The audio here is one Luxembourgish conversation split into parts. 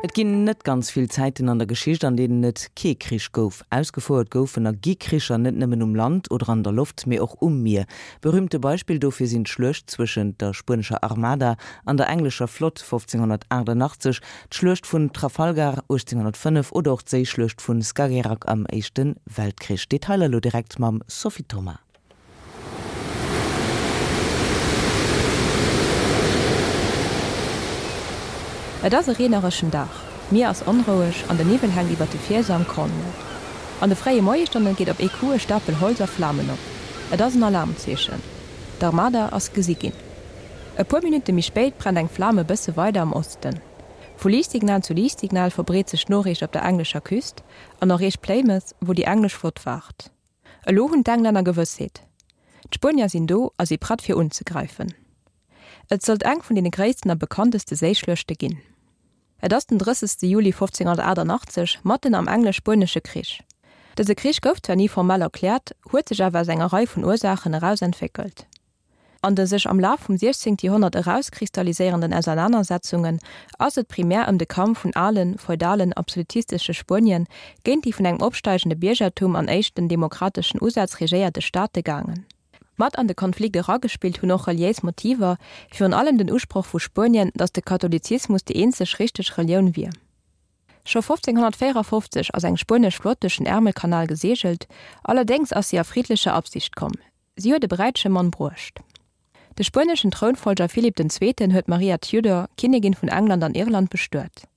Et ginn net ganz vill Zäiten an der Geschicht, an deenen et kee Krich gouf. Ausgefouert goufen a gi Kricher net nëmmen um Land oder an der Loft, mee och um Mier. Berühmte Beispill dofir sinn d'Schluecht zwëschent der spuenescher Armada an der englescher Flott 1588, d'Schluecht vun Trafalgar 1805 oder och d'Séischluecht vun Skagerrak am Éischte Weltkrich. Detailer elo direkt mam Sophie Thoma. Et ass e reenereschen Dag, d'Mier ass onroueg an de Niwwel hänkt iwwer de Fielse am Cornwall. An de fréie Moiesstonne geet op ee Coup e Stapel Holz a Flamen op. Et ass en Alarmzeechen. D'Armada ass gesi ginn. E puer Minutte méi spéit brennt eng Flam e bësse weider am Osten. Vu Liichtsignal zu Liichtsignal verbreet sech d'Noriicht op der englescher Küst an erreecht Plymouth, wou déi englesch Flott waart. Elo hunn d'Englänner Gewëssheet, D'Spuenier sinn do a si prett fir unzegräifen. Et sollt eng vun deene gréissten a bekannteste Séischluechte ginn. Et ass den 30. Juli 1588, matten am Englesch-Spuenesche Krich. Dëse Krich gouf zwar ni formell erkläert, huet sech awer aus enger Rei vun Ursaachen eraus entwéckelt. An de sech am Laf vum 16. Joerhonnert erauskristalliséierenden Ausernanersetzungen ass et primär ëm de Kampf vun alen, feudalen, absolutistesche Spuenien géint déi vun engem opsteigende Biergertum an éischten demokrateschen Usätz regéierte Staate gaangen. Mat an de Konflikt eragespillt hunn och reliéis Motiver, virun allem den Usproch vu Spuenien, datt de Katholizismus déi eenzeg richteg Relioun wier. Scho 1554 ass eng spuenesch Flott duerch den Ärmelkanal geseegelt, allerdéngs ass si a friddlecher Absicht komm. Si huet e bräitege Mann bruecht. De spueneschen Trounfollger Philipp den Zweeten huet d'Maria Tudor, Kinnigin vun England an Irland, bestuet.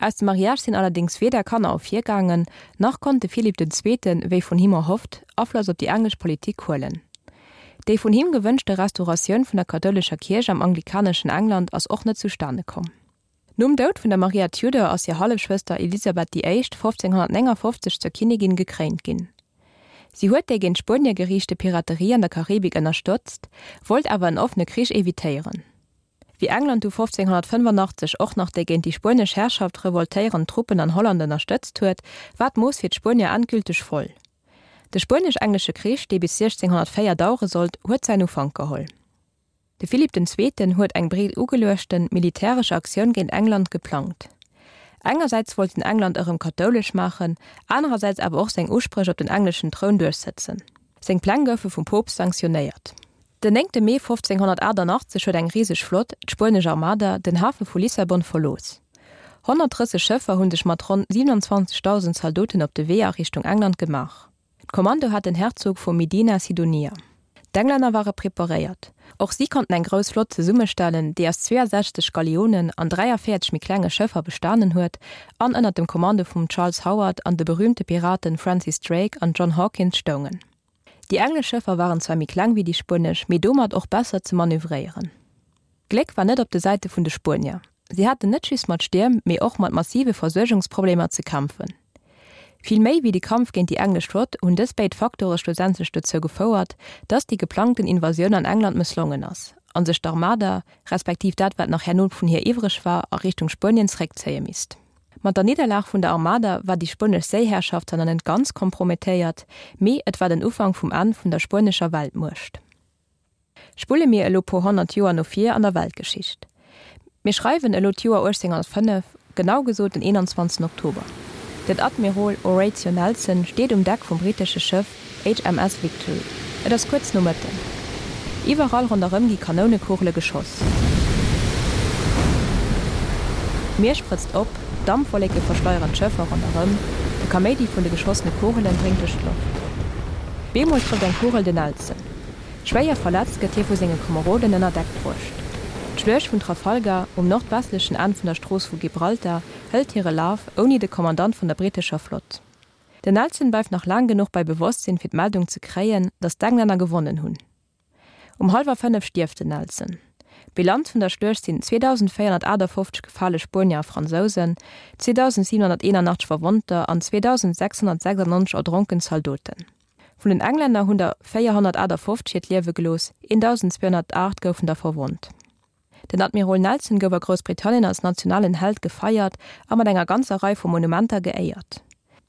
Aus dem Mariage sinn allerdéngs weder Kanner ervirgaangen, nach konnt de Philipp den Zweeten, wéi vun him erhofft, Afloss op déi englesch Politik huelen. Déi vun him gewënschte Restauratioun vun der kathoulescher Kierch am anglikaneschen England ass och net zustane komm. Nom Doud vun der Maria Tudor ass hir Hallefschwëster Elisabeth déi Éischt 1559 zur Kinnigin gekréint ginn. Si huet déi géint Spuenie geriichte Piraterie an der Karibik ënnerstëtzt, wollt awer en offene Krich evitéieren. Wéi England du 1585 och nach déi géint déi spuenesch Herrschaft revoltéierend Truppen an Holland ënnerstëtzt huet, war d'Mooss fir d'Spuenier endgülteg voll. De Spuenesch-Englesche Krich, dee bis 1604 dauere sollt, huet säin Ufank geholl. De Philipp den Zweeten huet eng breet ugeluechten militäresch Aktioun géint England geplangt. Engersäits wollt en England erëm kathoulesch maachen, anerersäits awer och seng Uspréch op den engleschen Troun duerchsëtzen. Seng Pläng goufe vum Poopst sanktionéiert. Den 9 Mee 1588 huet eng riseg Flott, d'spuenesch Armada, den Hafe vu Lissabon verlooss. 130 Schëffer hu sech mat ronn 27.000 Zaldoten op de Wee a Richtung England gemaach. D'Kommando hat den Herzog vu Medina Sidonia. D'Englänner ware preparéiert. Och si konnten eng grouss Flott zesummestellen, déi aus 62 Galeonen an 43 méi klenge Schëffer bestanen huet an ënner dem Kommando vum Charles Howard an de berüümte Piraten Francis Drake an John Hawkins stoungen. Déi englesch Schëffer waren zwar méi kleng wéi déi spuenesch, mee domat och besser ze manövréieren. D'Gléck war net op de Säite vun de Spuenier. Si haten net just mat Stierm, mee och mat massive Versuergungsproblemer ze kämpfen. Vill méi wéi de Kampf géint déi englesch Flott hunn dës béid Faktore schlussendlech dozou gefouert, datt déi geplangten Invasioun an England mësslongen ass, a sech d'Armada, respektiv dat wat nach herno vun hir iwwreg war, a Richtung Spuenien zeréckzéie misst. Mat der Nidderlag vun der Armada war déi spuenesch Séiherrschaft zwar nach net ganz kompromettéiert, mee et war den Ufank vum Enn vun der spuenescher Weltmuecht. Spulle mir elo puer 100 Joer no vir an der Weltgeschicht. Mir schreiwen elo d'Joer 1805, genau gesot den 21 Oktober. Den Admirol Horatio Nelson steet um Deck vum britesche Schëff HMS Victory. Et ass kuerz no Mëtten. Iwwerall ronderëm gi Kanounekugele geschoss. D'Mier sprëtzt op, Dampwolleke verschleieren d'Schëffer ronderëm, de Kaméidi vun de geschossene Kugelen dréngt duerch d'Loft. Bemol trëfft eng Kugel den Nelson. Schwéier verletzt gëtt hie vu senge Komeroden ënner Deck bruecht. D'Schluecht vun Trafalgar, um nordwestlechen Enn vun der Strooss vu Gibraltar, hëlt hire Laf, ouni de Kommandant vun der brittescher Flott. Den Nelson bleift nach laang genuch bei Bewosstsinn fir d'Meldung ze kréien, datt d'Englänner gewonnen hunn. Um hallwer 5 stierft den Nelson. D'Bilanz vun der Schluecht sinn 2.458 gefale Spuenier a Fransousen, 2.781 Verwonnter an 2.696 erdronken Zaldoten. Vun den Englänner hunn der 458 hiert Liewe gelooss, 1.208 goufen der verwonnt. Den Admirol Nelson gouf a Groussbritannien als nationalen Held gefeiert a mat enger ganzer Rei vu Monumenter geéiert.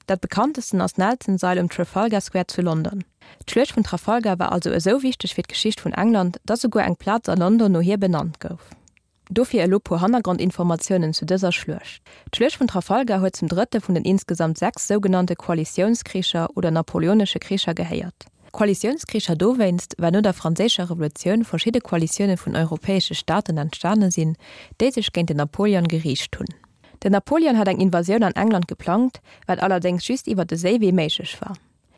Dat bekanntesten ass d'Nelson-Sail um Trafalgar Square zu London. D'Schluecht vun Trafalgar war also esou wichteg fir d'Geschicht vun England, datt esouguer eng Plaz a London no hir benannt gouf. Dofir elo puer Hannergrondinformatiounen zu dëser Schluecht. D'Schluecht vun Trafalgar huet zum drëtte vun den insgesamt 6 sougenannte Koalitiounskricher oder napoleonesche Kricher gehéiert. Koalitiounskricher dowéinst, well no der Franséischer Revolutioun verschidde Koalitioune vun europäesche Staaten entstane sinn, déi sech géint den Napoleon geriicht hunn. Den Napoleon hat eng Invasioun an England geplangt, wat allerdéngs just iwwer de Séiwee méiglech war.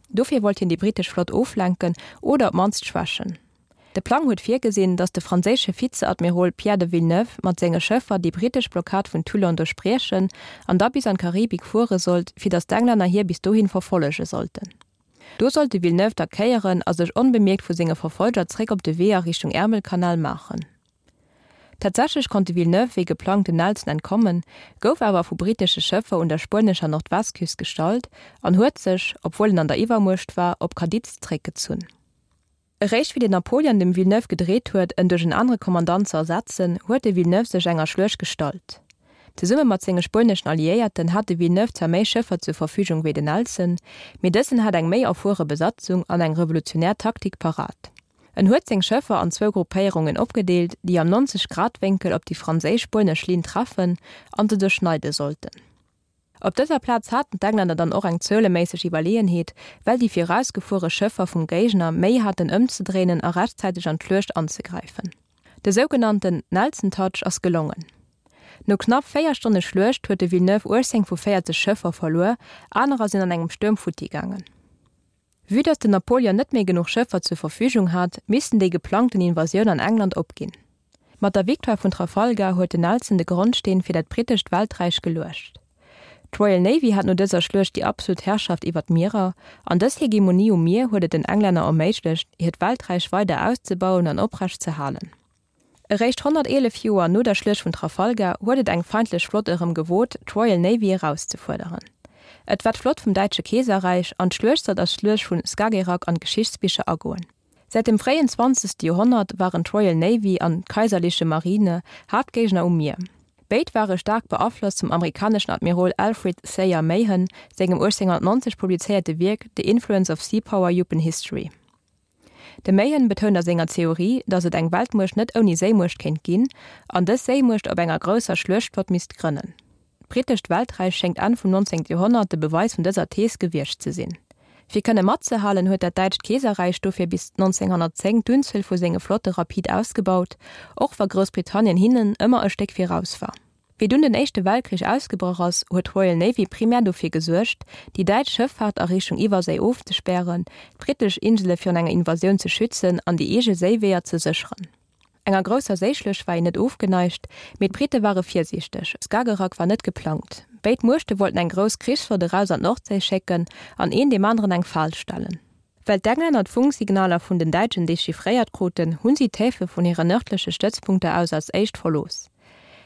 Dofir wollt hien déi brittesch Flott oflenken oder op d'mannst schwächen. De Plang huet virgesinn, datt de franséische Vizeadmirol Pierre de Villeneuve mat senge Schëffer déi brittesch Blockad vun Toulon duerchbriechen an da bis an d'Karibik fuere sollt, fir datt d'Englänner hie bis dohin verfollege sollten. Do sollt de Villeneuve da kéieren a sech onbemierkt vu senge Verfolger zréck op de Wee a Richtung Äermelkanal maachen. Tatsächlech konnt de Villeneuve wéi geplangt den Nelson entkommen, gouf awer vu brittesche Schëffer un der spuenescher Nordwestküst gestallt an huet sech, obwuel en an der Iwwermuecht war, op Cadiz zréckgezunn. Eréischt wéi den Napoleon dem Villeneuve gedreet huet, en duerch en anere Kommandant ze ersetzen, huet de Villeneuve sech enger Schluecht gestallt. Zesumme mat senge spueneschen Alliéierten hat de Villeneuve zwar méi Schëffer zur Verfügung wéi den Nelson, mee dësen hat eng méi erfuere Besatzung an eng revolutionär Taktik parat. En huet seng Schëffer an zwou Gruppéierungen opgedeelt, déi am 90 Grad Wénkel op déi franséisch-spuenesch Linn treffen an se duerchschneide sollten. Op dëser Plaz haten d'Englänner dann och eng zueleméisseg Iwwerleeënheet, well déi virausgefuere Schëffer vum Géigner Méi haten ëmzedréinen a rechtzäiteg an d'Schluecht anzegräifen. De sougenannten Nelson Touch ass gelongen. No knapp 4 Stonne Schluecht huet de Villeneuve 18 vu 40 Schëffer verluer, anerer sinn an engem Stuerm futti gaangen. Vue datt den Napoleon net méi genuch Schëffer zur Verfügung hat, missten déi geplangten Invasioun an England opginn. Mat der Victoire vun Trafalgar huet den Nelson de Grondsteen fir dat brittescht Welträich geluecht. D'Royal Navy hat no dëser Schluecht déi absolut Herrschaft iwwer d'Mierer, an dës Hegemonie um Mier huet et den Englänner erméiglecht, hiert Welträich weider auszebauen an oprecht ze halen. Eréischt 111 Joer no der Schluecht vun Trafalgar huet et eng feindlech Flott erëm gewot, d'Royal Navy erauszefuerderen. Et war d'Flott vum Däitsche Keeserräich, an d'Schluecht sollt als Schluecht vun Skagerrak an d'Geschichtsbicher agoen. Säit dem fréien 20. Joerhonnert waren d'Royal Navy an d'Kaiserliche Marine Haaptgéigner um Mier. Béid ware staark beaflosst vum amerikaneschen Admirol Alfred Thayer Mahan sengem 1890 publizéierte Wierk The Influence of Sea Power Upen History. De Mahan betount a senger Theorie, datt et eng Weltmuecht net ouni Séimuecht kéint ginn, an dës Séimuecht op enger grousser Schluechtflott misst grënnen. D'Brittescht Welträich schéngt Enn vum 19. Joerhonnert de Beweis vun dëser Thees gewiescht ze sinn. Fir kënne matzehalen, huet dat däitscht Keeserräich dofir bis 1910 d'Unzuel vu senge Flotte rapid ausgebaut, och wa Groussbritannien hinnen ëmmer e Stéck viraus war. Wéi dunn den Éischte Weltkrich ausgebrach ass, huet d'Royal Navy primär dofir gesuergt, déi däitsch Schëffaart a Richtung Iwwerséi ofzespären, d'brittesch Insele virun enger Invasioun ze schützen an déi eege Séiweeër ze sécheren. Enger grousser Séischluecht war een net ofgeneigt, mee d'Britte ware virsiichteg, Skagerrak war net geplangt. Béid Muechte wollten eng grouss Krichsflott eraus an d'Nordséi schécken an een deem aneren eng Fal stellen. Well d'Englänner d'Funksignaler vun den Däitschen dechiffréiert kruten, hunn si d'Häfe vun hire nërdleche Stëtzpunkter aus als éischt verlooss.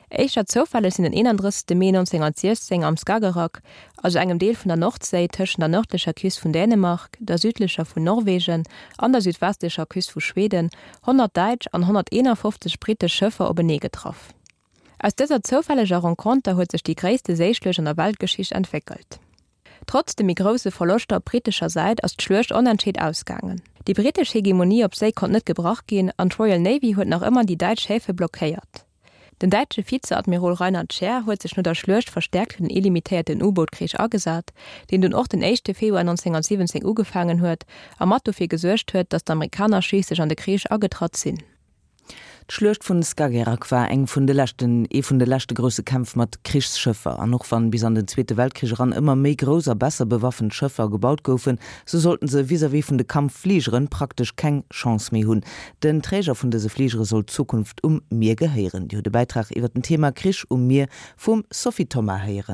Éischter zoufälleg sinn den 31. Mee 1916 am Skagerrak, also engem Deel vun der Nordséi tëschent der nërdlecher Küst vun Dänemark, der südlecher vun Norwegen an der südwestlecher Küst vu Schweden, 100 däitsch an 151 brittesch Schëffer openee getraff. Aus dëser zoufälleger Renconter huet sech déi gréisste Séischluecht an der Weltgeschicht entwéckelt. Trotz de méi grousse Verloschter op brittescher Säit ass d'Schluecht onentscheet ausgaangen. Déi brittesch Hegemonie op Séi konnt net gebrach ginn an d'Royal Navy huet nach ëmmer déi däitsch Häfe blockéiert. Den däitsche Vizeadmirol Reinhard Scheer huet sech no der Schluecht verstäerkt fir den illimitéierten U-Boot-Krich agesat, deen dunn och den éischte Februar 1917 ugefaangen huet a mat dofir gesuergt huet, datt d'Amerikaner schliisslech an de Krich agetratt sinn. D'Schluecht vun Skagerrak war eng vun de leschten, ee vun de leschte grousse Kämpf mat Krichsschëffer. An och wann bis an den Zweete Weltkrich eran ëmmer méi grouss a besser bewaffent Schëffer gebaut goufen, sou sollten se vis-à-vis vun de Kampffligeren praktesch keng Chance méi hunn. Den Träger vun dëse Fligere soll d'Zukunft um Mier gehéieren. Dir hutt e Bäitrag iwwer den Thema Krich um Mier vum Sophie Thoma héieren.